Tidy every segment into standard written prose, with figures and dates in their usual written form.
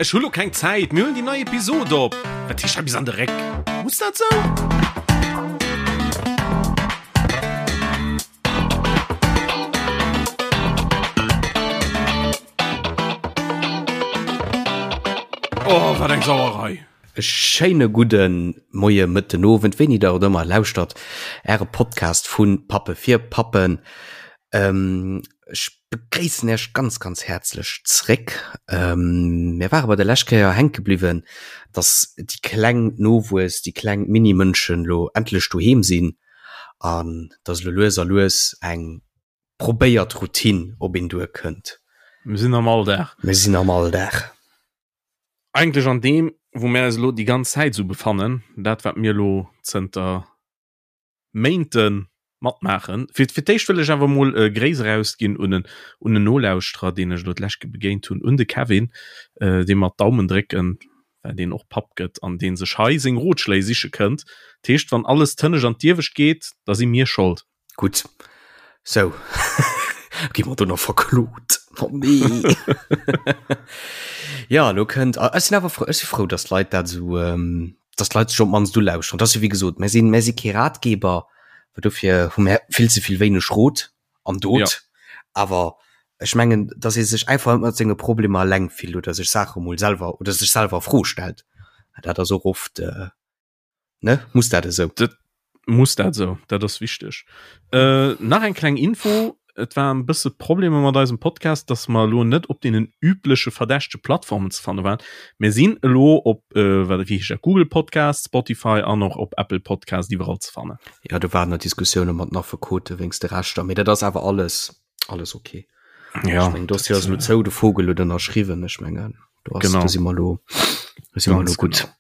Ech hu lo keng Zäit, mir huelen déi nei Episod op. Wat heescht hei bis an de Réck? Muss dat sou? Oh, wat eng Sauerei! E schéine gudde Moie, Mëtten, Owend, wéini der et ëmmer lauschtert, Äre Podcast vu Pappe fir Pappen. Ech begréissen Iech ganz, ganz häerzlech zréck. Mir ware bei der lescht Kéier hänke bliwwen, dass déi kleng Nowuess, déi kleng Mini-Mënschen elo endlech doheem sinn an dass elo lues a lues eng probéiert Routine op een duerkënnt. Mir sinn am Alldag. Mir sinn am Alldag. Eigentlech an deem, wou mir eis elo déi ganz Zäit esou befannen, dat wat mir elo zënter Méinte matmaachen. Fir fir d'éischt wëll ech awer emol e Gréiss erausginn un en un en Nolauschterer, deen ech elo d'lescht Ke begéint hunn, un de Kevin, deem mer d'Daumen drécken, well deen och Papp gëtt an dee sech hei seng Rotschléi siche kënnt. Dat heescht, wann alles d'Hënnescht an d'Iewescht geet, da si mir Schold. Gutt, sou gi mer do nach verklot. Oh nee. Ja, elo kënnt, ech sinn awer frou, ech si frou, datt d'Leit dat esou, datt d'Leit sech op d'mannst ulauschteren. Dat ass jo wéi gesot, mir sinn, mir si kee Ratgeber, well dofir hu mir vill ze vill wéineg Rot an Dot. Ja. Awer ech mengen, datt ee sech einfach net mat senge Problemer eleng fillt oder sech Saache mol selwer oder sech selwer a Fro stellt. Dat ass och oft, Ne? Muss dat esou? Dat muss dat esou, dat ass wichteg. Äh, nach eng kleng Info, Et war en bësse Problemer mat eisem Podcast, dass mer elo net op deenen übleche verdächtege Plattformen ze fanne waren. Mir sinn elo op, äh, wat, wéi heescht dat, Google Podcast, Spotify an och op Apple Podcast iwwerall ze fannen. Ja, do waren nach Diskussioune mat den Affekote wéinst de Rechter, mee dat ass awer alles, alles okay. Ja, Ech mengen, Dossier ass elo zou, de Vogel huet ënnerschriwwen, ech mengen, do ass, Genau. do si mer elo, do si mer Ganz elo gutt. genau.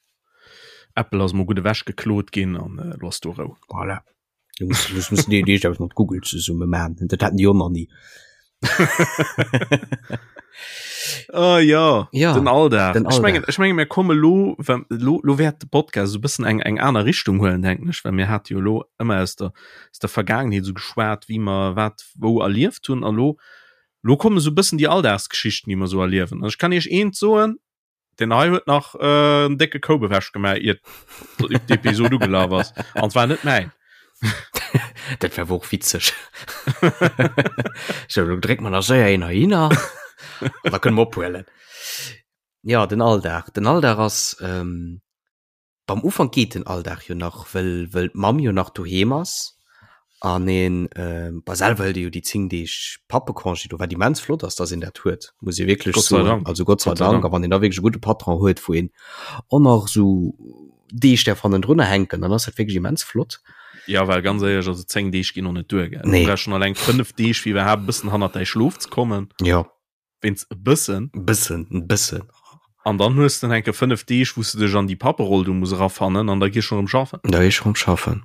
Apple ass mol gutt ewech geklot ginn an äh, lo ass do Rou. Voilà. Du muss, du muss déi Deeg mat Google zesumme man. Dat hatten déi och nach nie. Oh ja, ja den Alldag. Den Ech mengen, ech mengen mir komme lo, lo, lo wäert de Podcast so bëssen eng eng aner Richtung huelen denken ech, well mir hat jo lo ëmmer aus der aus der Vergaangenheet so geschwat, wéi mer wat wou erlieft hunn a lo lo komme so bëssen déi Alldagsgeschichten, déi mer so erliewen. An ech kann iech eent soen, Den hei huet nach äh, en décke Koup ewech gemaach, iert d'Episod ugelaf ass. An zwar net mäin. Dat wär och witzeg. So, lo dréckt man nach séier een heihinner. An da kënne mer ophuelen. Ja, den Alldag. Den Alldag ass, ähm, Beim Ufank geet den Alldag jo nach, wëll wëll d'Mamm jo nach doheem ass an een bah selwer hëlt ee jo déi 10 Deeg Pappecongé do, wat immens flott ass, dass een dat huet, muss ee wierklech Gott sei soen. Dank. Also Gott sei Gott sei Dank. Dank. A wann een da wierklech e gudde Patron huet, wou een och nach esou Deeg däerf hannendrunner hänken, dann ass dat wierklech immens flott. Ja, well ganz éierlech, also 10 Deeg ginn och net duer, gell? Nee. Du brauchs schonn alleng 5 Deeg, fir iwwerhaapt e bëssen hannert däi Schlof ze kommen. Jo. Wéinst e bëssen. Bëssen, en bëssen. An dann hues de enke 5 Deeg, wou s de dech an déi Papperoll do muss erafannen an da gees schon erëm schaffen. Da gees schon erëm schaffen.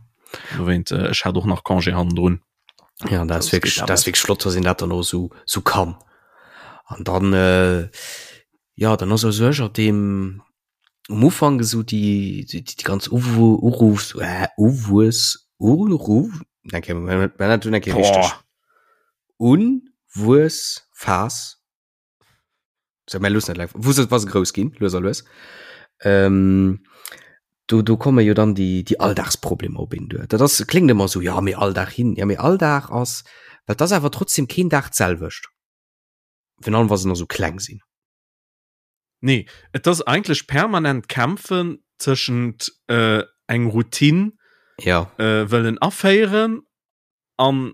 Dowéint, ech hat och nach Congé hannendrun. Ja, dat ass wierklech, dat ass wierklech flott, dass een dat dann och esou, esou kann. An dann, jo, dann ass u sech ab deem, um Ufank esou déi, déi, déi ganz Uwu-, Uruffs-, Uwuess-, Uruff-, eng Kéier, mir dat eng Kéier richteg. Unwuessphas, so mir loossen dat wou se wa se grouss ginn, lues a lues, ähm, do do komme jo dann déi déi Alldagsproblemer op een duer. Dat ass kléngt ëmmer esou, jo mee all Dag hin, ja mee all Dag ass, well et ass awer trotzdem keen Dag d'selwecht, virun allem wa se nach esou kleng sinn. Nee, et ass eigentlech permanent kämpfen tëschent äh, eng Routine ja. äh, wëllen aféieren an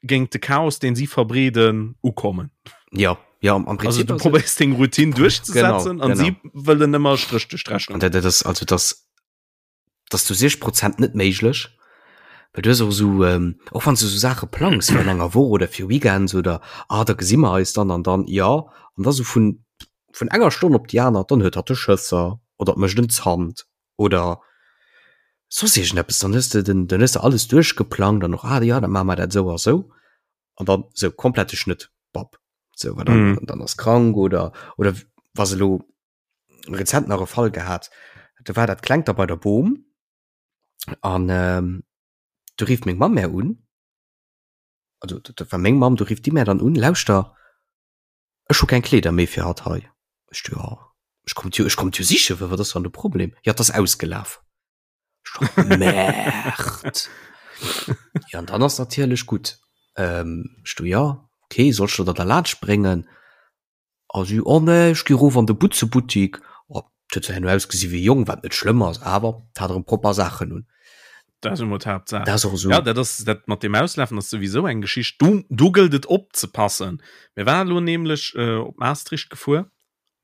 géint de Chaos, deen si verbreeden, ukommen. Ja, ja, am Prinzip. Also du probéiers deng Routine duerchzesetzen an si wëllen ëmmer Stréch duerch d'Rechnung. Dat, dat ass, also das, das zu 60 Prozent net méiglech. Well du hues och esou, ähm, och wann du esou Saache plangs fir an enger Woch oder fir Weekends oder ah, da gesi mer eis dann an dann, ja, an da sou vun, vun enger Stonn op déi aner, dann huet hatt de Schësser oder et mécht en Zant oder soss iergendeppes, dann hues de den, dann hues de alles duerchgeplangt an och, ah jo, da maache mer dat esou a sou an dann sou komplette Schnëtt, bap, sou, well dann, mm. dann ass krank oder, oder wa se elo rezent nach e Fall gehat, do war dat Klengt da bei der Bom an ähm, du rifft meng Mamm mär un, also dat war meng Mamm, du rifft déi mär dann un, lauschter, ech hu keng Kleeder méi fir hatt hei. Ech du, ja. Ech komm jo, ech komm jo sichen, wat ass dann de Problem? Ja, et ass ausgelaf. Merd. Ja, an dann ass natierlech gutt. Ähm, ech du ja, okay, soll ech der dat erlaanscht bréngen? A si, oh nee, ech gi rof an de Butzebuttik. Oh, et huet zwar herno ausgesi wéi e Jong, wat net schlëmm ass, awer et hat erëm propper Saachen un. Dat ass emol d'Haaptsaach. Dat ass och esou. Ja, dat ass dat mat dem Auslafen ass souwisou eng Geschicht. Do, do gëllt et opzepassen. Mir waren elo nämlech äh, op Maastricht gefuer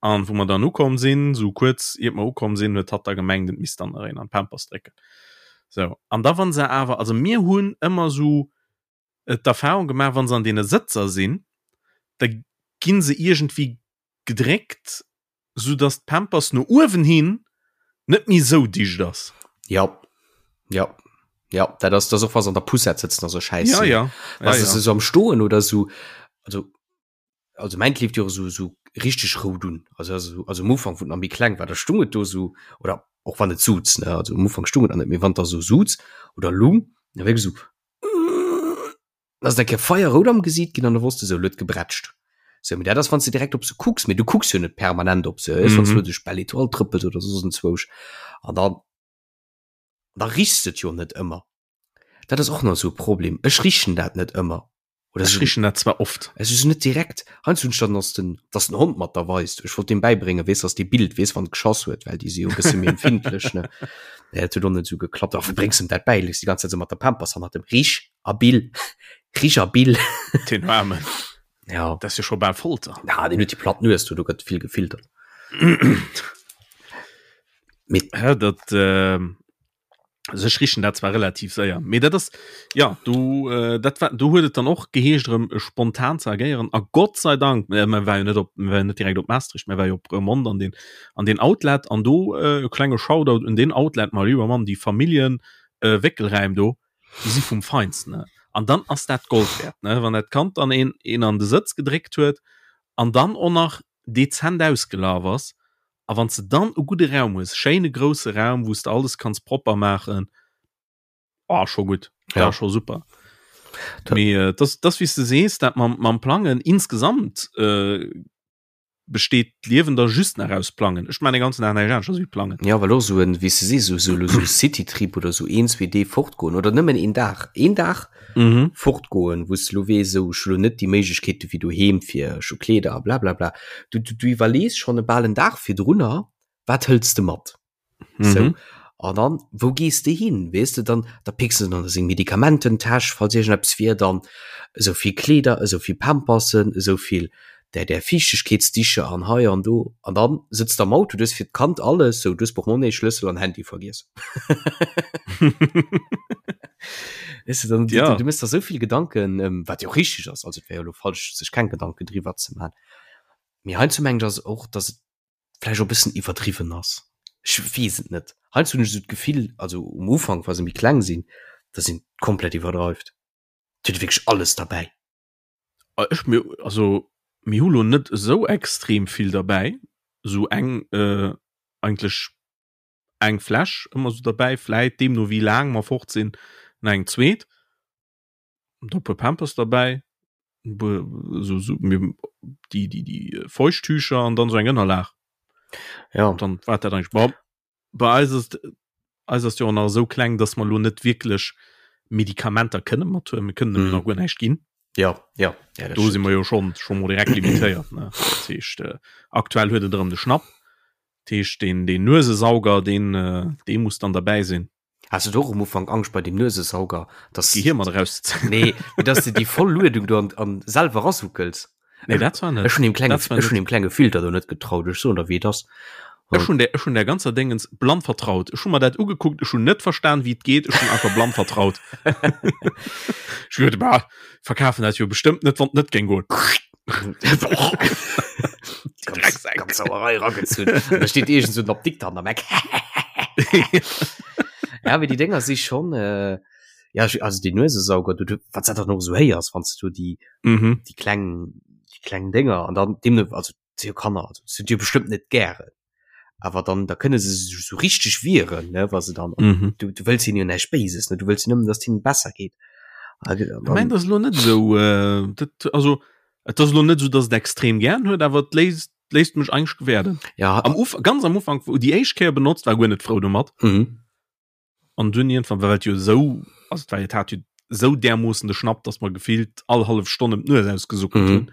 an wou mer dann ukomm sinn, sou kuerz iert mer ukomm sinn, huet hatt da gemengt, et misst dann nach een an d'Pampers drécken. Sou, an da wann se awer, also mir hunn ëmmer sou d'Erfahrung gemaach, wann se an deene Sëtzer sinn, da ginn se iergendwéi gedréckt, sou dass d'Pampers no uewen hin net méi sou dicht ass. Ja, ja, ja, dat ass, dat ass och wa se an der Poussette sëtzen a sou Schäiss Ja, ja, ja, ja. Se sou am Stoen oder sou, also also mäint leeft jo och sou, sou richteg rout un, also also also am Ufank wou et nach méi kleng war, da stung et do sou, oder och wann et suz, ne, also am Ufank stung et nach net, mee wann et da sou suz oder lung, da wierklech sou ass et eng Kéier feierrout am Gesiit ginn an da wosst de sou, lo huet gebrätscht. Sou, mee dat ass wann s de direkt op se kucks, mee du kucks jo net permanent op se, wann s du duerch Belle Étoile trëppels oder soss enzwousch an dann da richs de et jo net ëmmer. Dat ass och nach esou e Problem, ech richen dat net ëmmer. Oder ech richen dat zwar oft. Es ist net direkt. Heiansdo hunn ech dann, dass den, dass den Hond mat der weist. Ech wollt deem bäibréngen, weess, dass dee Bild weess, wann et geschass huet, well déi si jo e bësse méi empfindlech, ne. Nee, dat huet och net esou geklappt. A wéi bréngs em dat bäi? Lees déi ganz Zäit esou mat der Pampers hannert dem Rich a Bill, Rich a Bill. Den Aarmen. Ja. Dat ass jo scho bal Folter. Ja, deen huet déi platt Nues do, do gëtt vill gefiltert. Mee. Hä, dat, äh. Also ech richen dat zwar relativ séier, mee dat ass ja du äh, dat war du huet et dann och geheescht erëm äh, spontan ze agéieren a Gott sei Dank äh, man war jo net op man war net direkt op Maastricht, man war jo op Roermond an den an den Outlet an do äh, e klenge Shoutout un den Outlet mal lieber Mann, déi Familljen äh, Wéckelräim do, déi si vum Feinsten ne. An dann ass dat Gold wäert ne, wann dat Kand dann een een an de Sëtz gedréckt huet an dann och nach dezent ausgelaf ass A wann s de dann e gudde Raum hues, schéine grousse Raum, wou s de alles kanns propper maachen, oh, scho gutt, ja. Ja, scho super. Mee äh, das, das wéi s de sees, dat mam, mam Plangen insgesamt äh, besteet d'Liewen da just nach aus Plangen. Ech maan de ganzen Dag näischt aneschters wéi plangen. Ja, well och esou en, wéi s de sees, esou, esou, esou Citytrip oder esou een, zwee Deeg fortgoen oder nëmmen een Dag, een Dag mhm. fortgoen, wou s de lo weess, esou, ech hu lo net déi Méiglechkeete wéi doheem fir ech hu Kleeder a blablabla. Du, du, du iwwerlees schonn e bal en Dag virdrunner, wat hëls de mat? Mhm. Sou. An dann, wou gees de hin? Weess de, dann, da picks de dann seng Medikamententäsch, falls iergendeppes wier, dann esou vill Kleeder, esou vill Pampersen, esou vill där, där Fiichtegkeetsdicher an hei an do. An dann sëtz de am Auto, du hues fir d'Kand alles, sou, du hues Portmonnaie, Schlëssel an Handy vergiess. Weißt du, dann, Ja. du, du mëss der sou vill Gedanken, ähm, wat jo och richteg ass, also et wär jo elo falsch, sech keng Gedanken driwwer ze man. Mee heiansdo mengen ech ass och, dass et vläicht och e bëssen iwwerdriwwen ass. Ech weess et net. Heiansdo hunn ech esou d'Gefill, also um Ufank, wa se méi kleng sinn, dass een komplett iwwerdreift. Et huet wierklech alles derbäi. Ah, ech mir also mir hu lo net esou extrem vill derbäi, esou eng äh, eigentlech eng Fläsch ëmmer esou derbäi, vläit deemno wéi laang mer fort sinn nach eng zweet, da e puer Pampers derbäi, e puer esou esou mir déi déi déi Feuchttücher an dann esou eng Ënnerlag. Ja. Dann war dat eigentlech bon. Bei eis ass eis ass jo och nach esou kleng, dass mer elo net wierklech Medikamenter kënne mathuelen. Mir kënnen em Mhm. nach guer näischt ginn. Ja, ja, ja, dat Do si stimmt. mer jo schonn scho mol direkt limitéiert, ne. Dat heescht, äh, aktuell huet et erëm de Schnapp. Dat heescht, deen, deen Nuesesauger, deen, äh, dee muss dann derbäi sinn. Has du och um Ufank Angscht bei dem Nuesesauger, dass D'Gehir mat erauszezéien? Nee, mee dass de déi voll Luedung do an, an selwer erasuckels. Nee, dat zwar net. Ech hunn deem klenge, Dat zwar ech hunn net. deem klenge Filter do net getraut. Ech soen der, wéi et ass. Ech hunn der, ech hunn der ganzer Déngens blann vertraut. Ech hu mer dat ugekuckt, ech hunn net verstan, wéi et geet, ech hunn einfach blann vertraut. Ech hu geduet, bah, verkafen dat jo bestëmmt net, wann et net géing goen. Ganz, ganz Sauerei ragezunn. Da steet iergend sou en Apdikter an der Meck. Ja, mee déi Dénger si schonn, äh, ja, ech, also deen Nuesesauger, du, du, wat s dat dann och esou héiers, wann s du déi, Mhm. déi kleng, déi kleng Dénger an dann deemno, also si jo Kanner, also se hunn jo bestëmmt net gären, awer dann, da kënne se sech esou richteg wieren, ne, wa se dann, Mhm. du, du wëlls hinnen jo näischt Béises, ne, du wëlls jo nëmmen, datt hinnen besser geet. A Ech dann, mengen, dat ass elo net esou, äh, dat, also et ass elo net esou, datt et extrem gären huet, awer et léist. Léisst mech eigentlech gewäerden. Ja. Am Uf ganz am Ufank, wou déi éischt Kéier benotzt, war guer net frou domat. Mhm. An dunn iergendwann, well et jo esou, also et war jo, et hat jo esou därmoossen de Schnapp, dass mer gefillt all hallef Stonn ëm d'Nues ausgesuckelt Mhm. hunn.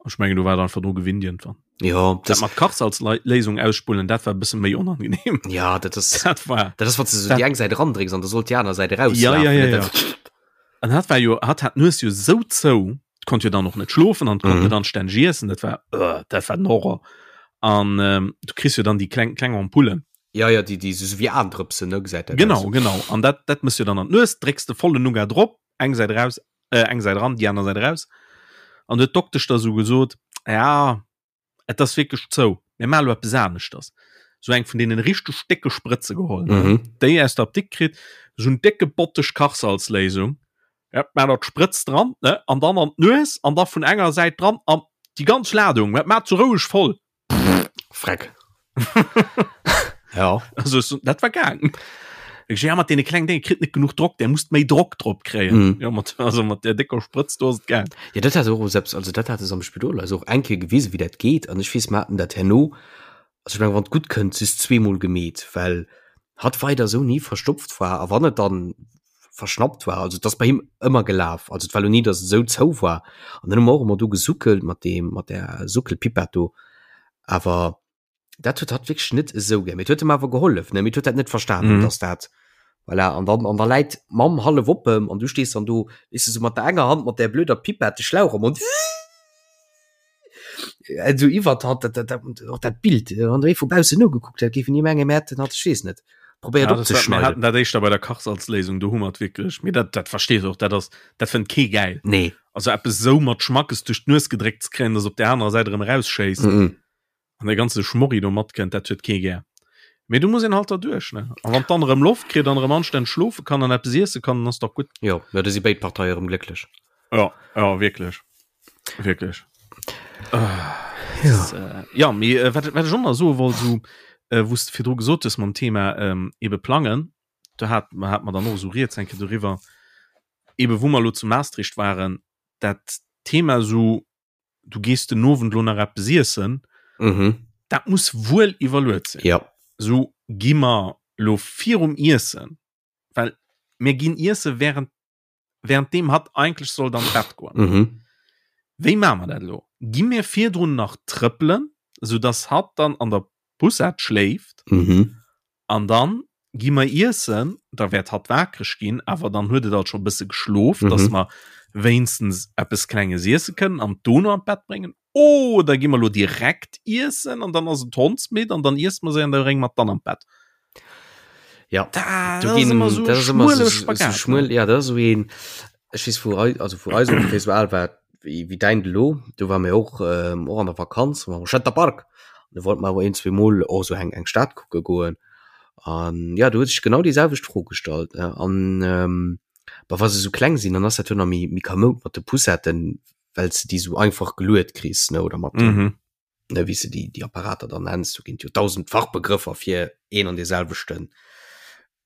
An ech mengen, do war et einfach dru gewinnt iergendwann. Ja, Dat das, mat Kachsalzléisung ausspullen, dat war e bësse méi onangenehm. ja, dat ass, Dat war. dat ass, wann du so Dat- déi eng Säit erandrécks an da sollt déi aner Säit Ja, erauslafen. ja, ja, ne? ja. Dat- An hat war jo, hat hat d'Nues jo esou zou, konnt jo dann och net schlofen an konnt Mhm. net anstänneg iessen, dat war, uh, dat war den Horror. An ähm, du kriss jo dann déi kleng, kleng Ampullen. Ja, ja, déi, déi so wéi Aendrëpsen, ne, gesäit dat Genau, aus. genau. An dat, dat mëss jo dann an d'Nues, drécks de vollen Nougat drop, eng Säit raus, äh, eng Säit ran, déi aner Säit raus. An du huet d'Doktesch da sou gesot, ja, et ass wierklech zou, mir maache lo eppes aneschters. Sou eng vun deenen richteg décke Sprëtze geholl, ne, Mhm. déi aus der Apdikt kritt, sou en décke Botteg Kachsalzléisung, ja, maach der d'Sprëtz dran, ne, an dann an d'Nues an da vun enger Säit dran an déi ganz Ladung, dat maat sou roueg voll. Freck. ja. Also, so, dat war gaang. Ich, ja, mat deene klengen Dénge kritt net genuch Drock, der musst méi Drock drop kréien. Mhm. Ja, mat, also mat der décker Sprëtz do ass et gaang. Ja, dat hat och selbst, also dat hat es am Spidol also och eng Kéier gewisen, wéi dat geet. An ech weess, mer haten dat herno, also ech meng, wann et gutt kënnt, just zweemol gemeet, well hatt weider esou ni verstopft war. A wann et dann verschnappt war, also et ass bei him ëmmer gelaf, also et war lo ni, datt et esou zou war. An dann hu mer och ëmmer do gesuckelt mat deem, mat där Suckelpipett do. Awer dat huet hatt wierklech net esou gär. Mee et huet em awer gehollef, ne? Mee et huet dat net verstanen, Mhm. dass dat voilà. An dann, an da läit d'Mamm hallef op em an du stees dann do, weess de, sou mat der enger Hand mat där blöder Pipett de Schlauch am Mond, esou iwwert hatt, dat, dat, dat, och dat Bild, wann der ee vu baussen nogekuckt hätt, géif een ni mengen, mir hätten hatt, ech weess net, probéiert Ja, das war, mir opzeschneiden. hatten dat éischter bei der Kachsalzléisung, do hu mer et wierklech, mee dat, dat verstees och, dat ass, dat fënnt kee gäil. Nee. Also eppes esou mat Schmackes duerch d'Nues gedréckt ze kréien, dass op där anerer Säit erëm erausschéisst. Mhm. An de ganze Schmorri do matkënnt, dat huet kee gär. Mee du muss een halt derduerch, ne? A wann dann erëm Loft kritt an erëm anstänneg schlofe kann an eppes iesse kann, dann ass dach gutt. Jo, jo, da si béid Parteie erëm glécklech. Ja, ja, wierklech. Wierklech. Ja. Das, äh, ja, mee äh, wat, wat ech och nach soe wollt, so, äh, wou s de virdru gesot hues mam Thema ähm, ebe plangen, do hat, hat mer dann och esou rieds eng Kéier doriwwer, ebe wou mer elo zu Maastricht waren, dat Thema esou, du gees den Owend lo nach eppes iessen, mhm. dat muss wuel iwwerluet sinn. Ja. So gi mer lo virum Iessen, well mir ginn iesse während während dem hat eigentlich soll dann Bett goen. Mhm. Wéi maache mer dat lo? Gi mir virdrun nach trëppelen, sou dass hatt dann an der Poussette schléift? Mhm. An dann gi mer iessen, da wäert hatt wakereg ginn, awer dann huet et alt scho bësse geschlof, mhm. dass mer wéinstens eppes Klenges iesse kënnen an dono an d'Bett bréngen. Oder gi mer lo direkt iessen an dann ass et hondsmidd an dann iesse mer se an da brénge mer et dann an d'Bett. Ja, da, du das ginn, ass ëmmer so das ass ëmmer schmuele so, so Spagat, ne? schmuel, ja, das ass so een, ech weess vu eis, also vu eis ongeféier sou al war wéi, wéi däin elo, do war mir och, ähm, och an der Vakanz, war am Center Park, an do wollte mer awer een, zwee Mol och sou eng, eng Stad kucke goen, an ja, do huet sech genau déi selwecht Fro gestallt, ne, an, ähm, bah, wa se sou kleng sinn, dann ass dat jo nach méi, méi kamoud mat de Poussetten, well s de déi sou einfach geluet kriss, ne, oder mat den, Mhm. ne, wéi s de déi, déi Apparater dann nenns, do ginn et jo 1.000 Fachbegrëffer fir een an dee selwechten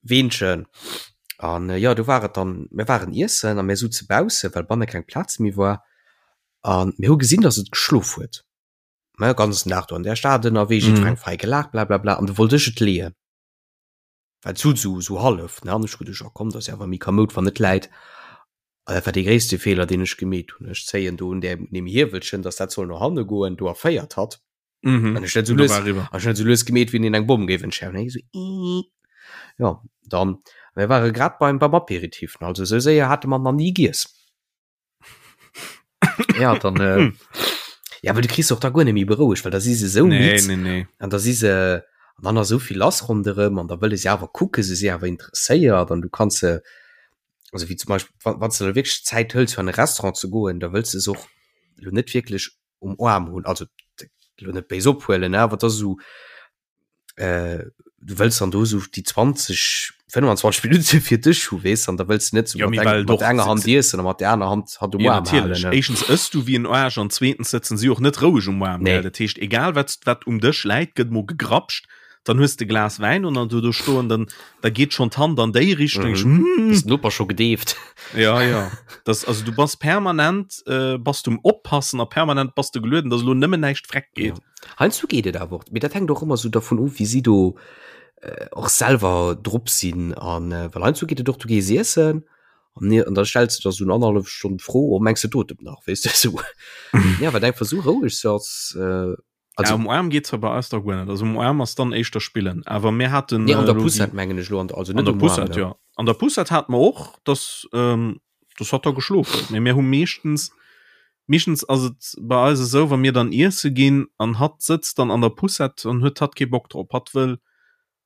Weenchen. An jo, do war et dann, mir waren iessen a mir souze bausse, well banne keng Plaz méi war. A mir hu gesinn, datt et geschlof huet, ne, ganzen Dag do an där Stad ënnerwee, jiddwereng frei gelaacht, blablabla. An du wollt ech et leeën, well et sot esou, esou hallef, ne. An ech hu geduecht, oh komm, dat ass jo awer méi kamoud, wann et läit. An dat war dee gréisste Feeler, deen ech gemeet hunn. Ech zéien do un där, un deem Hiewelchen, datt dat soll no hanne goen, do erféiert hatt. Mhm. An ech net so Und da lues, war eriwwer. an ech net so lues gemeet, wéi een eng Bomm géif entschärfen. Hei so, ii. Ja, dann, mir ware grad beim, beim Aperitif, ne, also sou séier hate mer nach ni giess. Ja, dann, äh, ja, well du kriss och da guer net méi berouegt, well da si se sou Nee, midd nee, nee. an da si se, an dann ass sou vill lass ronderëm an da wëlle se awer kucken, se si awer interesséiert an du kanns se, also wéi zum Beispill, wann, wann s de der wierklech d'Zäit hëls fir an e Restaurant ze goen, da wëlls de se och lo net wierklech um Aarm hunn, also lo net béis ophuelen, awer et ass esou, äh, du wëlls dann do esou déi 20, 25 Minutte fir dech hu, weess, an da wëlls du net sou Ja, mat mee eng, well mat doch enger Hand iessen a mat der aner Hand hatt um Ja, Aarm halen, natierlech. ne? Éischtens ëss du wéi en Aarsch an zweetens sëtzen si och net roueg um Aarm, Nee. gell? Dat heescht, egal wat, wat um Dësch läit, gëtt mol gegrapscht. Dann hues de Glas Wäin und dann du do stoen, dann da geet schon d'Hand an déi Richtung. Mhm. Mm. Ist Noper scho gedeeft. Ja ja. Das, also du bass permanent äh, bass du um oppassen a permanent bass du gelueden, dass lo nëmmen näischt freck geet. Ja. Heiansdo geet et awer och, mee dat hänkt och ëmmer sou dervun of, wéi si do äh, och selwer drop sinn an äh, well heiansdo geet et och, du gees iessen an ne an da stells du der sou en annerhallef Stonn d'Fro, oh mengs de d'otemt nach, weess de sou. Ja, well einfach sou roueg se ass äh, also, ja, um Aarm geet zwar bei eis da guer net, also um Aarm ass dann éischter spillen, awer mir haten nee, an der Poussette mengen ech lo, an also net um Aarm, ja. An der Poussette hate mer och, dass ähm, das hat da geschlof huet, mee mir hu meeschtens meeschtens ass et bei eis esou, wa mir dann iesse ginn an hatt sëtzt dann an der Poussette, dann huet hatt kee Bock drop, hatt wëll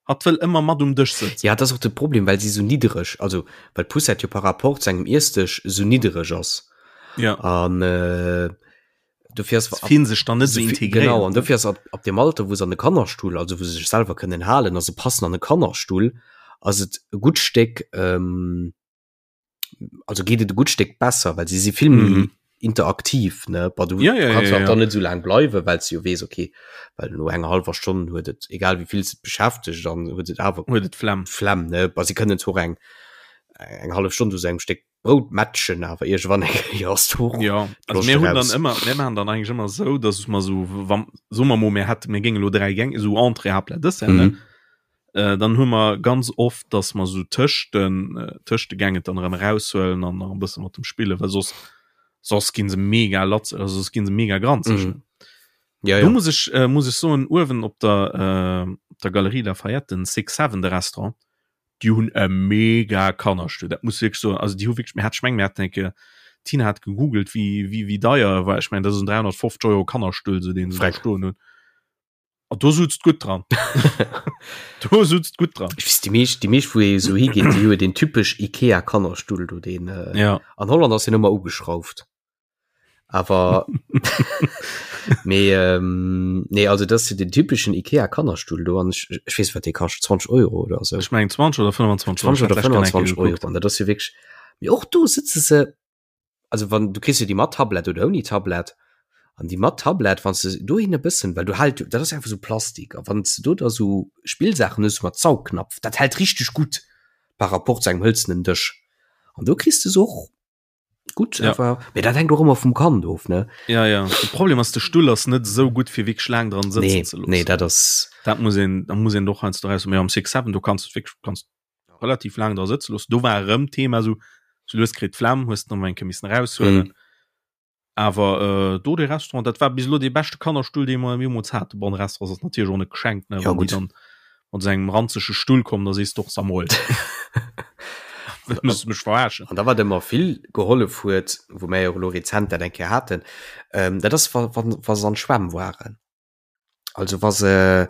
Hatt wëll ëmmer mat um Dësch sëtzen. Ja, dat ass och de Problem, well si sou niddereg, also well d'Poussette jo par rapport zu engem Iessdësch sou niddereg ass. Ja. An äh, dofir ass. Se fillen sech dann net sou integréiert. Genau, an dofir ass ab, ab dem Alter, wou se an de Kannerstull, also wou se sech selwer kënnen halen a se passen an e Kannerstull, ass et e gutt Stéck, ähm, also geet et e gutt Stéck besser, well si si vill méi mhm. interaktiv ne ba du ja, ja, kannst ja, ja. dann net so lang bleiwe well du jo wees okay well no enger halber Stonn huet et egal wie vill se beschäftegt dann huet et awer huet et Flemm Flemm ne ba sie kënnen zwar eng eng half Stonn zu engem Steck Brout matchen awer irgendwann eng Kéier ass du ja also mir hunn dann ëmmer mir machen dann eigentlich ëmmer sou dass mer sou wann so mer mo mir hätte mir géinge lo dräi Gäng sou Entrée Haaptplat Dessert ne mhm. Äh, dann hu mer ganz oft, dass mer sou tëscht den, äh, tëscht de Gängen dann erëm eraushuelen an nach e bësse mat dem spillen, well soss, soss ginn se mega latz, also soss ginn se mega granzeg. Mhm. Ja, Do ja. muss ech, äh, muss ech soen, uewen op der, äh, op der Galerie Lafayette, den Six Seven, de Restaurant, déi hunn e mega Kannerstull, dat muss wierklech soen. Also déi hu wierklech, mir hat, ech meng mir haten eng Kéier, d'Tina hat gegoogelt, wéi, wéi, wéi deier e war, ech mengen dat ass en 350 Euro Kannerstull, sou deen se do Freck. stoen hunn. Ah, do sutzt gutt dran. do sutzt gutt dran. Ech weess, déi meescht, déi meescht wou ee sou higeet, déi hu den typesch Ikea Kannerstull do, deen äh, Ja. an Holland ass deen ëmmer ugeschrauft. Awer mee ähm, nee, also dat ass jo den typeschen Ikea Kannerstull do an ech, ech weess wat dee kascht, 20 Euro oder sou. Ech mengen 20 oder 25 20 Euro. oder 25 Euro an dat ass jo wierklech, mee och do sëtze se also wann du kriss jo déi mat Tablett oder ouni Tablett an déi mat Tablett wann du dohin e bëssen well du hält dat ass einfach sou Plastik a wann du do da sou Spillsaachen hues mat Saugknapf dat hält richteg gutt par rapport zu engem hëlzenen Dësch an do kriss du se och gutt Ja. awer mee dat hänkt och ëmmer vum Kand of ne Ja, ja. De Problem ass, de Stull ass net esou gutt fir wierklech laang dran sëtzen nee ze loossen. nee dat ass Dat muss een, da muss een doch heiansdo raus. Mee am Six Seven, do kanns du wierklech kanns relativ laang dra sëtze loossen. Do war erëm Thema sou, sou lues kritt d'Flemm, hues de nach eng Kéier missen eraushuelen. Mhm. Awer äh, do de Restaurant, dat war bis elo dee beschte Kannerstull, dee mer jeemools haten. Bon, de Restaurant ass natierlech och net geschenkt, ne? Ja, Wann déi gutt. dann mat esou engem ranzege Stull kommen, da sees de och, Sag mol, wëlls du mech verarschen? An da wat ëmmer vill gehollef huet, wou mär jo elo rezent dat eng Kéier haten, ähm, dat ass wa, wa, wa se an d'Schwämm waren. Also wa se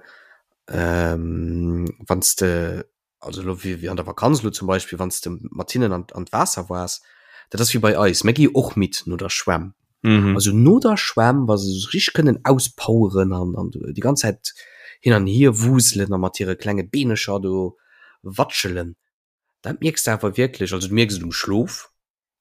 ähm, wann s de also lo wéi wéi an der Vakanz lo zum Beispill, wann s de mat hinnen an an d'Waasser waars, dat ass wéi bei eis, mir gi och midd no der Schwämm. Mhm. Also no der Schwämm, wa se sech richteg kënnen auspoweren an an déi ganz Zäit hin an hier wuselen a mat hire klenge Beenecher do watschelen, Dat mierks de awer wierklech, also du mierks et um Schlof,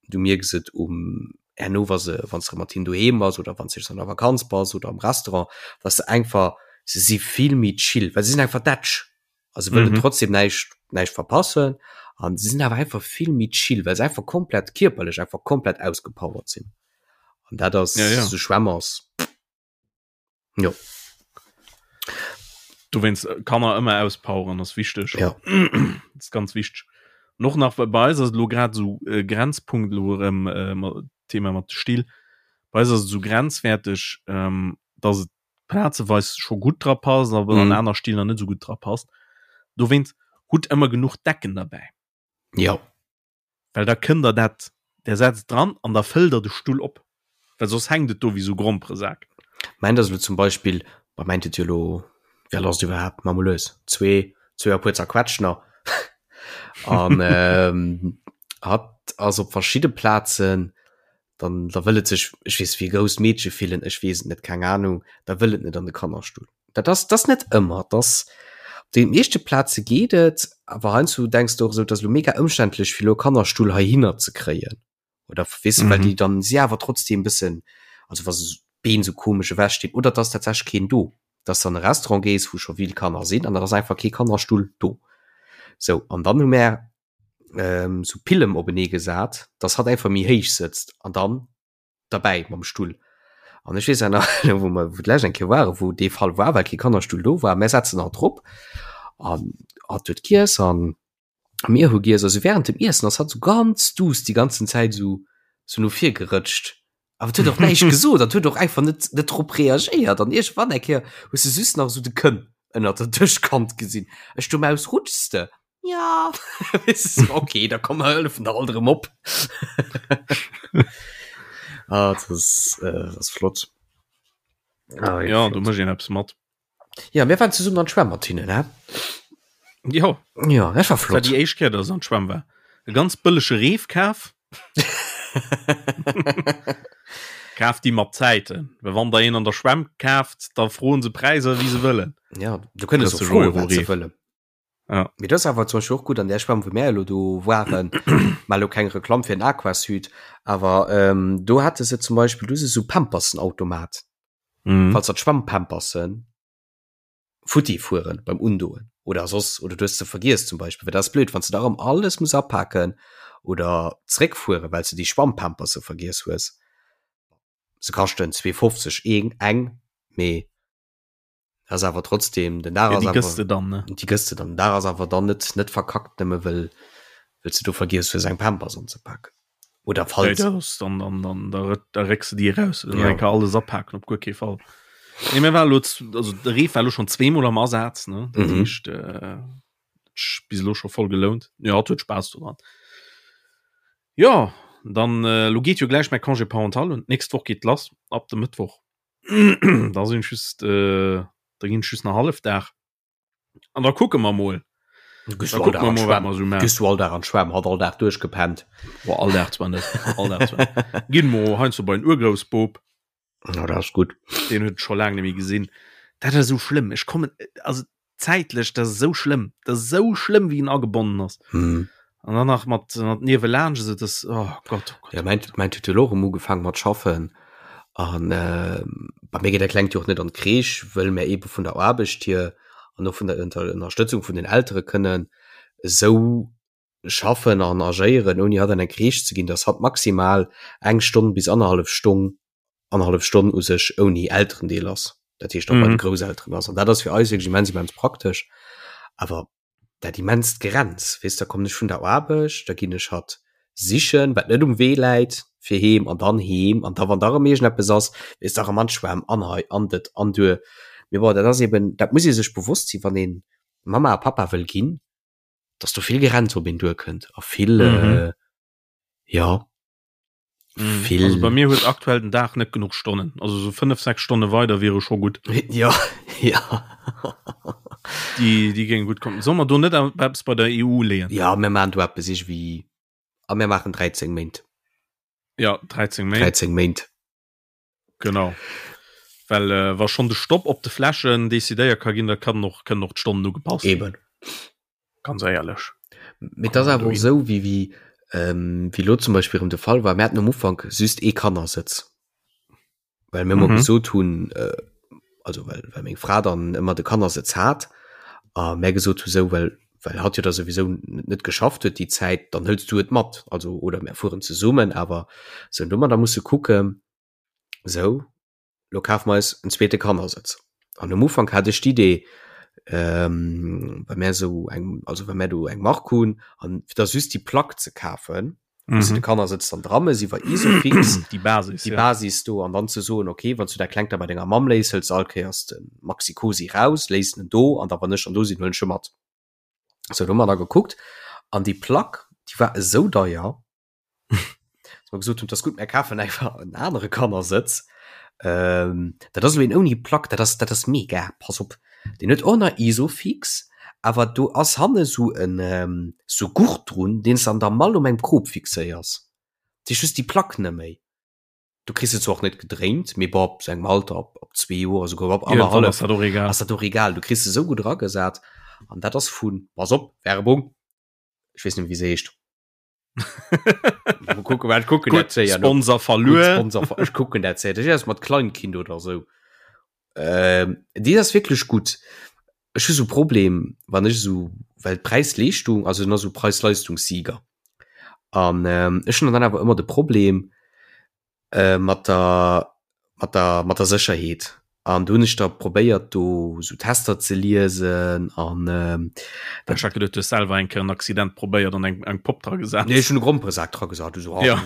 du mierks et um herno wa se wann s de mat hinnen doheem bass oder wann s de an der Vakanz bass oder am Restaurant, dass se einfach se si vill méi chill, well se sinn einfach dätsch a se wëllen trotzdem näischt näischt verpassen an se sinn awer einfach vill méi chill, well se einfach komplett kierperlech einfach komplett ausgepowert sinn an dat ass Ja, ja. sou Schwämmers. Jo. Dowéinst äh, Kanner ëmmer auspoweren ass wichteg. Ja. Das ist ganz wichteg. Und och nach bei eis ass et lo grad so äh, Grenzpunkt lo erëm äh, ma- Thema mat de Still. Bei eis ass et so grenzwerteg, ähm, dass et plazeweis scho gutt dra passt, awer an Mhm. aner Still nach net so gutt dra passt. Dowéinst hutt ëmmer genuch Decken derbäi. Ja. Well da kënnt der dat, der setzt dran an da fëllt der de Stull op, well soss hänkt et do wéi sou Gromperesak. Mäint ass elo zum Beispill, bah mäint huet jo elo, wéi al ass et iwwerhaapt, ma mol lues, zwee, zwee a puer zerquetscht nach an hatt ass op verschidde Plazen, dann da wëll et sech, ech weess, wéi e grousst Meedche fillen, ech weess et net, keng Ahnung, da wëll et net an de Kannerstull. Dat ass, dat ass net ëmmer, dat ass, op de meeschte Plaze geet et, awer heiansdo denks de och esou, et ass elo mega ëmständlech fir elo e Kannerstull heihinner ze kréien oder weess de, well déi dann si awer trotzdeem bëssen, also wa se d'Been esou komesch ewech stinn oder et ass tatsächlech keen do. Dass de an e Restaurant gees, wou scho vill Kanner sinn an dann ass einfach kee Kannerstull do. Sou, an dann hu mär ähm, sou Pillem openee gesat, dass hatt einfach méi héich sëtzt an dann derbäi mam Stull. An ech weess awer nach, wou mer wou d'lescht eng Kéier waren, wou dee Fall war, well kee Kannerstull do war, mär setzen hatt drop an hatt huet giess an mir hu giess. Also während dem Iessen ass hatt sou ganz duuss déi ganzen Zäit sou sou no vir gerëtscht. Awer et huet och näischt gesot, et huet och einfach net net drop reagéiert. An iergendwann eng Kéier hues de just nach sou de Kënn ënnert der Dëschkant gesinn. Ech du Maus, rutschs de? Ja okay, da komm mer hëllefen der alt erëm op. ah, das ist, äh, das ist flott. Ah, ja, du mech een eppes mat. Ja, mir waren zesummen an d'Schwämm mat hinnen, hä? Ja. Ja, dat war flott. War déi éischt Kéier, dass ech an d'Schwämm war. E ganz bëllege Reef kaf. Kaaft déi mat Zäiten, well wann der een an der Schwämm kaaft, da froen se Präisser wéi se wëllen. Ja, du kënne se froen, wat se wëllen. Ja. Mee dat ass awer zum Beispill och gutt an där Schwämm, wou mär elo do waren, mar elo keng Reklamm fir den Aquasud, awer ähm, do hate se zum Beispill, do si sou Pampersenautomat. Mhm. Falls der d'Schwammpampersen futti fueren beim Undoen oder soss oder du hues se vergiess zum Beispill, well dat ass blöd, wann s de da erëm alles muss apaken oder zréckfueren, well s de déi Schwammpamperse vergiess hues. Se kaschten 2,50 een eng, mee ass awer trotzdem den Dag ja, die gëss de dann ne die gëss de dann da ass awer dann net net verkackt nëmme wëll wëll du do vergiess fir seng Pampers anzepacken oder falls ja, das, dann dann dann da, da récks du die raus ja. kann alles apacken op guer kee Fall nee, mir war lo also de Reef war lo schon zweemol am Asaz ne dat mhm. heescht, äh, bis lo schon voll gelount ja hat huet Spaß dran ja dann äh, lo geet jo gleich mein Congé parental und nächst Woch geht lass ab dem Mittwoch da sinn just äh, da ginn just nach hallef Dag an da kucke mer mol Gehst du all Dag an d'Schwämm hat all Dag duerchgepennt Boah, all Dag zwar net all Dag zwar ginn mo heiansdo bei den Urgroussbop Ja, dat ass gutt den huet scho laang net méi gesinn dat ass esou schlëmm ech kommen also zäitlech dat ass esou schlëmm dat ass esou schlëmm wéi en agebonnen ass mm. an dann nach mat mat niewelaanscht also das oh Gott, oh Gott. Ja, mein, mein huet jo och erëm ugefaangen mat schaffen an äh, bei mir geet dat Klengt jo och net an d'Crèche, wëll mir ebe vun der Aarbecht hier an och vun der Ënnerstëtzung vun den Eltere kënnen esou schaffen an agéieren, ouni hatt an eng Crèche ze ginn, dass hatt maximal eng Stonn bis annerhallef Stonn, annerhallef Stonn u sech ouni Elterendeel ass, dat heescht och bei de Grousselteren ass. An dat ass fir eis wierklech immens, immens praktesch. Awer dat immenst Gerenns, weess, da kommen ech vun der Aarbecht, da ginn ech hatt sichen, wat net um Wee läit, fir heem an dann heem an da wann da erëm iergendeppes ass, weess, da erëm an d'Schwämm an hei an dat an duer. Mee bon, dat ass eben, dat muss ee sech bewosst sinn, wann ee Mamma a Pappa wëll ginn, dass do vill Gerenns op een duerkënnt a vill, mhm. äh, ja mhm. vill. Also bei mir huet aktuell den Dag net genuch Stonnen also so 5 6 Stonne weider wiere scho gut ja ja die die géing gut kommen soll man do net eppes bei der EU leeën ja mir man du eppes ich wie a mir machen 13 Méint ja 13 Méint 13 Méint Genau. Well äh, wa schon de Stopp op de Fläschen decidéiert ka ginn, da kann och kënnen och d'Stonnen ugepasst ginn. Eben. Ganz éierlech. Mee et ass awer och esou, wéi wéi ähm, wéi lo zum Beispill erëm de Fall war, mir haten um Ufank just ee Kannersëtz. Well mir ëmmer mhm. gesot hunn, äh, also well, well meng Fra dann ëmmer de Kannersëtz hat, a mär gesot hu sou, well well hatt jo da souwisou net geschafft huet déi Zäit, dann hëls du et mat, also oder mär fueren zesummen, awer sou, an do hu mer da musse kucken, sou, lo kafe mer eis en zweete Kannersëtz. An um Ufank hat ech d'Idee, ähm, well mär sou eng, also well mär do eng Mark hunn, an fir da just déi Plack ze kafen, wou s de de Kannersëtz dann dra mëss iwwer Isofix, Déi Basis, déi ja. Basis do, an dann ze soen, okay, wann s du dat Klengt da bei denger Mamm léiss, hëls de all Kéiers de Maxi-Cosi raus, léiss en do, an da wann ech dann do sinn, huelen ech e mat. Sou, do hu mer da gekuckt, an déi Plack, déi war esou deier, dass mer gesot hunn, 't ass gutt, mär kafen einfach en anere Kannersëtz. Ähm, dat ass elo een ouni Plack, dat ass, dat ass mega, pass op, deen huet och nach Isofix, awer do ass hanne sou en, sou Gurt drun, deen s de an der Mall um engem Krop fixéiers. Dat heescht, du hues déi Plack net méi. Du kriss se zwar och net gedréint, mee bon, ab sou engem Alter, ab, ab zwee Joer, esouguer ab Iergendwann ass annerhallef, dat och egal. ass dat och egal. Du kriss se sou gutt eragesat an dat ass vun, pass op, Werbung, ech weess net méi wéi se heescht. Kucken, wat kucken dat séier. Sponsor verluer. Sponsor, ech kucken dat séier. Dat ass mat Kleinkind oder sou. Ähm, déi ass wierklech gutt. Ech hu sou Problem, wann ech sou, well d'Präis-Leeschtung, also en ass sou Preis-Leistungssieger. An ähm, ech hunn dann awer ëmmer de Problem äh, mat der, mat der, mat der Sécherheet. An do hunn ech da probéiert, do sou Tester ze liesen an ähm, Ech hat geduet, du hues selwer eng Kéier en Accident probéiert an eng, eng Popp dra gesat. Nee, ech hunn e Gromperesak dra gesat. Du so, ah, Ja.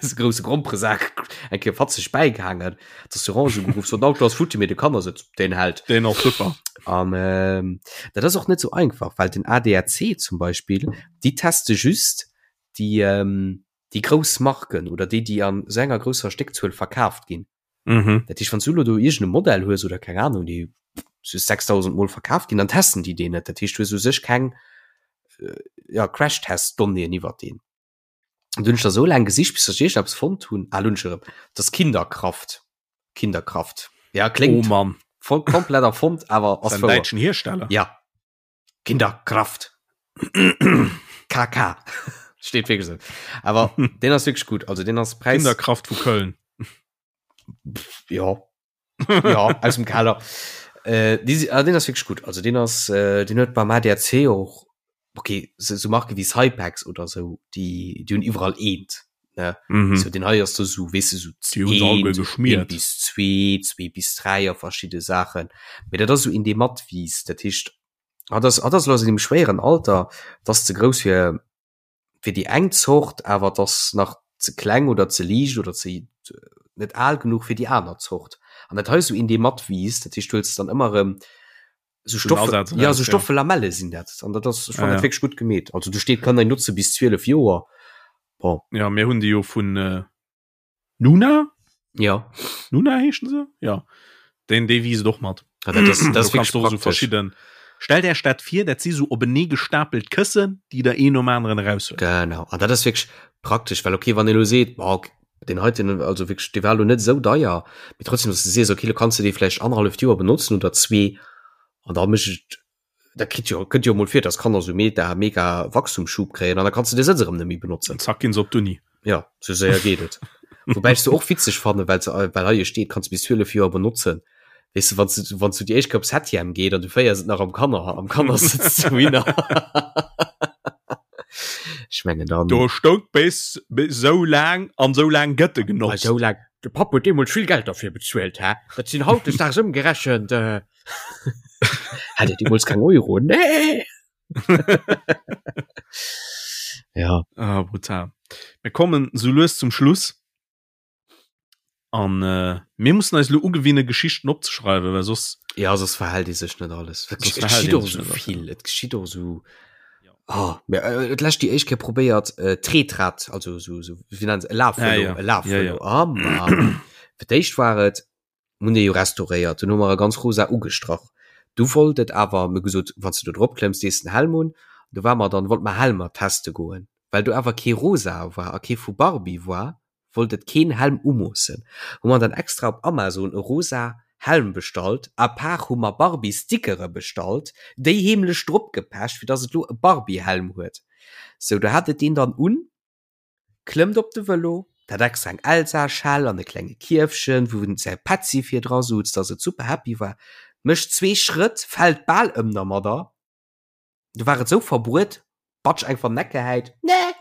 so grousse Gromperesak eng Kéier fatzeg bäigehaangen. D'Assurance ugeruff, so den Auto ass futti, mee de Kannersëtz, deen hält. Deen ass super. An ähm, dat ass och net sou einfach, well den ADAC zum Beispill, déi teste just déi, ähm, déi grouss Marken oder déi, déi an sou enger grousser Stéckzuel verkaaft ginn. Mhm. Dat heescht, wann s du elo do iergend e Modell hues oder keng Ahnung, déi sou 6.000 Mol verkaaft ginn, dann testen déi deen net. Dat heescht, du hues u sech keng, äh, ja, Crashtest-Donnéeën iwwert deen. Und hunn ech da so laang gesicht, bis ech iergendeppes fonnt hunn. Ah, lo hunn ech erëm. Das Kinderkraft. Kinderkraft. Ja, kléngt Oh Mann. voll komplett erfonnt, awer ass Ist ein wouer. däitschen Hersteller. Ja. Kinderkraft. KK. Steet wierklech esou. Awer deen ass wierklech gutt. Also deen ass Präis. Kinderkraft vu Köln. Ja. ja, aus dem Keller. Äh, die, ah, den ass wirklich gut. Also den ass, äh, den huet beim ADAC och, okay, so, so Marke wie Cypex oder so, die, die hunn iwwerall eent. Ne? Mhm. So, den hei ass do so, weess du, so Die hunn se alleguer eent, geschmiert. eent bis zwee, zwee bis dräi a verschidde Saachen. Mee dat ass so in dee matwiisst. Dat heescht, hat ass, hat ass lo an engem schwéieren Alter, dat ass ze grouss fir, fir déi eng Zort, awer et ass nach ze kleng oder ze liicht oder ze net al genuch fir déi aner Zort. An dat hei ass esou een, dee matwiisst, dat heescht, du huels dann ëmmer erëm esou Stoff, ja, esou stoffe Lamelle sinn dat. An dat ass, ech fannen dat wierklech gutt gemeet. Also do steet, kann een notze bis 12 Joer. Bon. Ja, mir hunn déi jo vun Nuna? Ja. Nuna heeschen se? Ja. Den dee wiisst och mat. Ja, dat ass, dat ass wirklich so verschidden. Stellt Äech dat vir, dat si sou openee gestapelt Këssen, déi der een nom aneren eraushuelt. Genau. An dat ass wirklich praktesch, well okay, wann ee lo seet, boah, okay, deen heiten, also wirklich, dee war lo net esou deier, mee trotzdem, dass du sees, okay, lo kanns du dee vläicht annerhalleft Joer benotzen oder zwee, an da mécht et Dat kritt jo, kënnt jo mol vir, dass Kanner sou mega, mega Wachstumsschub kréien an da kanns du de Sëtz erëm net méi benotzen. Zack ginn se op d'Uni. Ja, sou séier geet et. Woubäi ech se och witzeg fannen, well se, well hei jo steet, kanns du bis 12 Joer benotzen. Weess du, wann s du, wann s du déi éischt Kéier op Septième geet an du féiers et nach am Kanner, am Kannersëtz dohinner. Ech mengen dann. Do stoung bis, bis sou laang an sou laang gëtt e genotzt. Sou laang. De Papp huet deemools vill Geld derfir bezuelt, hä? Dat sinn hautdesdaags ëmgerechent. Hat Dir deemools keng Euro? Nee! Ja. Ah, brutal. Mir kommen sou lues zum Schluss. An äh, mir mussen eis lo ugewinne Geschichten opzeschreiwen, well soss. Ja, soss verhält ee sech net alles. Et Soss geschitt verhält ee och sech sou net alles, vill. Et geschitt och sou. Ah, mir, äh, et lescht déi éischt Kéier probéiert, äh, Tretrad, also sou, sou, wéi nennen se, e Lafvëlo, Ah, ja. e Lafvëlo. Ja, ja. Ah, Mann. Fir d'éischt war et, Mir hunn dee jo restauréiert, dunn hu mer e ganz rosa ugestrach. Du wollt et awer, mir gesot, wann s de do drop klëmms, dees den Helm un. Du war mer dann, wollt mer Helmer teste goen. Well do awer kee rosa war a kee vu Barbie war, wollt et keen Helm umoossen. Hu mer dann extra op Amazon e rosa Helm bestallt, à part hu mer Barbie-Stickere bestallt, déi heemlech drop gepecht, fir dass et lo e Barbie-Helm huet. Sou, do hat et deen dann un. Klëmmt op de Vëlo, hat extra eng Elsa-Schell an e klenge Kierfchen, wou en säi Petzi vir dra sutz, dass et super happy war, mécht zwee Schrëtt, fält bal ëm dermadder, du war et sou verbruet, batsch eng van Neck gehäit, nee!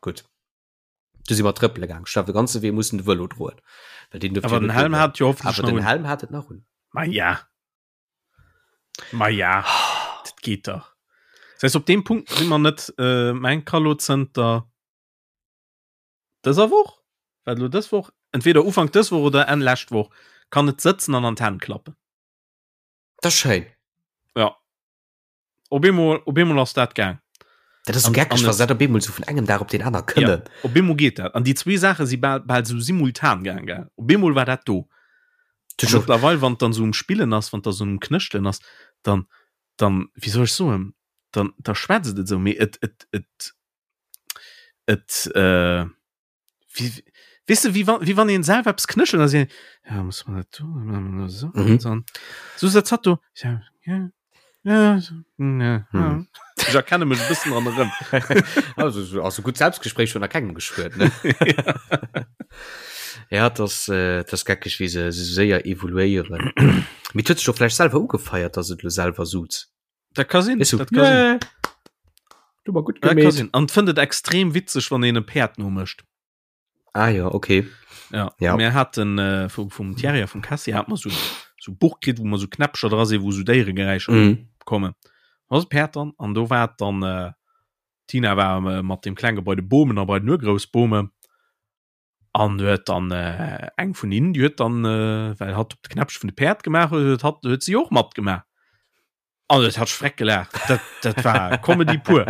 Gutt, du si mer trëppele gaang, ech hu awer de ganze Wee mussen de Vëlo droen, well deen duerft Awer jo den net Helm do hat jo hoffentlech Awer nach den un. Helm hat et nach un. Ma ja. Ma ja, dat geet dach. Das heißt, op deem Punkt si mer net äh, mein Kallo zënter dëser Woch, wat lo dës Woch, entweder Ufank dës Woch oder Enn lescht Woch, kann et sëtzen an an d'Hänn klappen. Dat ass schéin. Ja. Op eemol, op eemol ass dat gaang. Dat ass sou geckeg, wa se dat op eemol sou vun engem Dag op deen aner kënnen. Ja, op eemol geet dat. An déi zwee Saache si bal, bal sou simultan gaang, gell. Op eemol war dat do. A mëttlerweil, wann et dann sou um Spillen ass, wann et da sou um Knëschtelen ass, dann, dann, wéi soll ech soen, dann, da schwätzt et esou, mee et, et, et, et, äh, Wie, weißt du, wie wann, wie wann een selwer eppes knëschelt, da si, ja, muss man dat do, so, Mhm. dann, so setzt hat do, ja, ja, ja, so, ja, ja. Mhm. Ich erkenne mech e bëssen dran erëm. Also, so, also gut Selbstgespräch schon a kengem geschwuert, ne? Ja, das, äh, das geckeg wéi se se séier evoluéieren. Mee huet sech doch vläicht selwer ugefeiert, dass et lo selwer suz. Dat ka sinn. Weißt du, Dat ka sinn. yeah. Du war gut Dat ka gemeet. sinn. An fënnt et extrem witzeg, wann een e Päerd nomécht. Ah ja, okay. Ja. Ja. Mir haten äh, vum, vum Thierry a vum Cassie hat mer so so Buch kritt, wou mer so Knäppcher dra sinn, wou so Déieregeräischer Mhm. kommen. Da ass e Päerd dran an do war et dann äh, Tina war äh, mat dem Klenge bei de Bomen a bei den Urgroussbome. An huet dann äh, eng vun hinnen, déi huet dann, äh, well hatt op de Knäppche vun de Päerd gemaach huet, huet hatt huet si och matgemaach. An et hat schreck gelacht. Dat, dat war Comedy pur.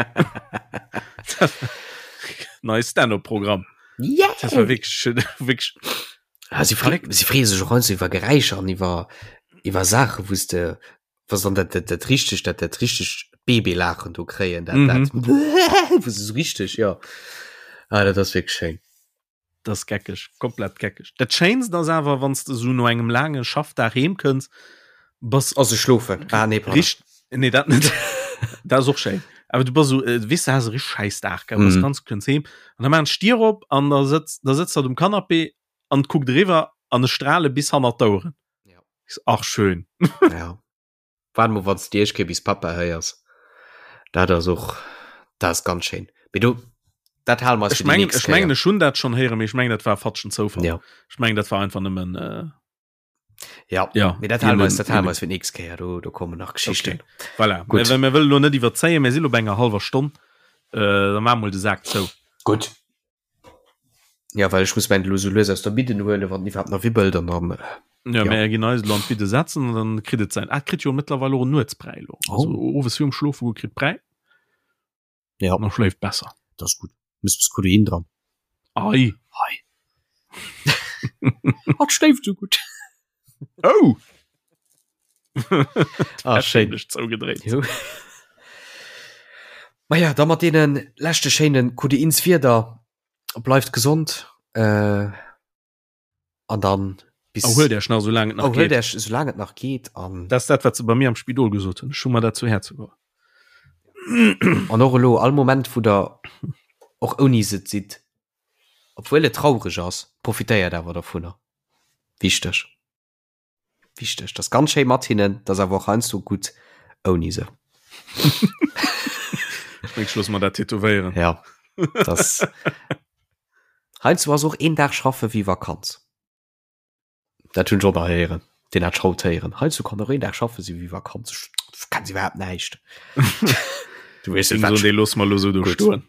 Nei Stand-up-Programm. Yeah! Das war wirklich, wirklich Ah, sie, fre sie freeë sech och heiansdo iwwer Geräischer an iwwer, iwwer Saachen, wou s de, was dann dat, dat, dat richtig, dat, dat richtig Babylaachen do kréien, dat, Mhm. dat, wou se so richtig, ja. Ah, dat ass wirklich schéin. Das geckeg, komplett geckeg. Dat Schéinst ass awer, wann s de so no engem laange Schaffdag heem kënns, bass Also schlofen. Ah, nee, pardon. richt nee dat net dat ass och schéin awer du bass so äh, weess du has e richtig scheiß Dag gell bass Mhm. ganz kënns heem an da maan ech d'Dier op an da sëtzt da sëtzt hatt um Canapé an kuckt eriwwer an e strale bis hannert d'Oueren. Ja. Ich so, Ach schön. Ja. Waart mol, wann s de Iech bis Papa héiers. Dat ass och, dat ass ganz schéin. Mee do, dat hale mer eis Ech fir déi mengen, nächst ech mengen Kéier. ech hunn dat schonn héieren, mee ech mengen dat war fatschen Zoufall. Ja. Ech mengen dat war einfach nëmmen äh, Ja. ja. Mee dat hale mer eis, dat hale Hien- mer eis fir d'nächst Kéier. Do, do kommen nach Geschichten. Okay. Voilà. Gutt. Mir, mir wëllen lo net iwwerzéien, mir si lo bei enger hallwer Stonn. Äh, da maache mol de Sak zou. Gutt. Ja, well ech muss mäin elo sou lues aus der Bidden huelen, wann en iwwerhaapt nach wibbelt an dann. Ja, Ja. mir ginn eis elo an d'Bidde setzen an dann kritt et säin. Ah, et kritt jo mëttlerweil och en Nuetsbräi elo. Oh. Also owes virum Schlofe goe kritt Bräi. Ja. An da schléift besser. Dat ass gutt. Muss bis Kodein dran. Ei. Hei. Hatt schléift sou gutt. Oh! Ah, schéin. Zougedréit. Jo. Maja, da mat deene leschte schéine Kodeinswierder, bleift gesond äh, an dann bis. Erhuelt Iech nach, soulaang et nach Erhuelt geet. Iech, soulaang et nach geet an. Dat ass dat, wat se bei mir am Spidol gesot hunn. Ech hu mer dat zu Häerze geholl. An och elo, all Moment, wou der och ouni se sidd, obwuel et traureg ass, profitéiert awer dovunner. Wichteg. Wichteg. Dat ass ganz schéi mat hinnen, dat ass awer och heiansdo gutt ouni se. Ech meng, ech loosse mer dat tätowéieren. Ja, das heiansdo ass och een Dag schaffe wéi Vakanz. Dat hunn ech och nach héieren, deen hat ech haut héieren. Heiansdo kann och een Dag schaffe si wéi Vakanz. Ech kenn se iwwerhaapt näischt. Du weess net, Deen wat dee loosse mer elo sou do Gutt. stoen.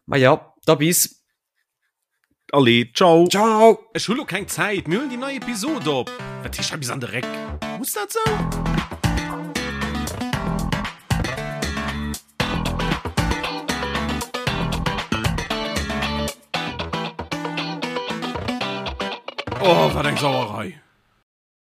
Ma ja, da bis. Allez, ciao. Ciao. Ech hu lo keng Zäit, mir huelen déi nei Episode op. Wat heescht hei bis an de Réck? Muss dat sou? Oh, wat eng Sauerei!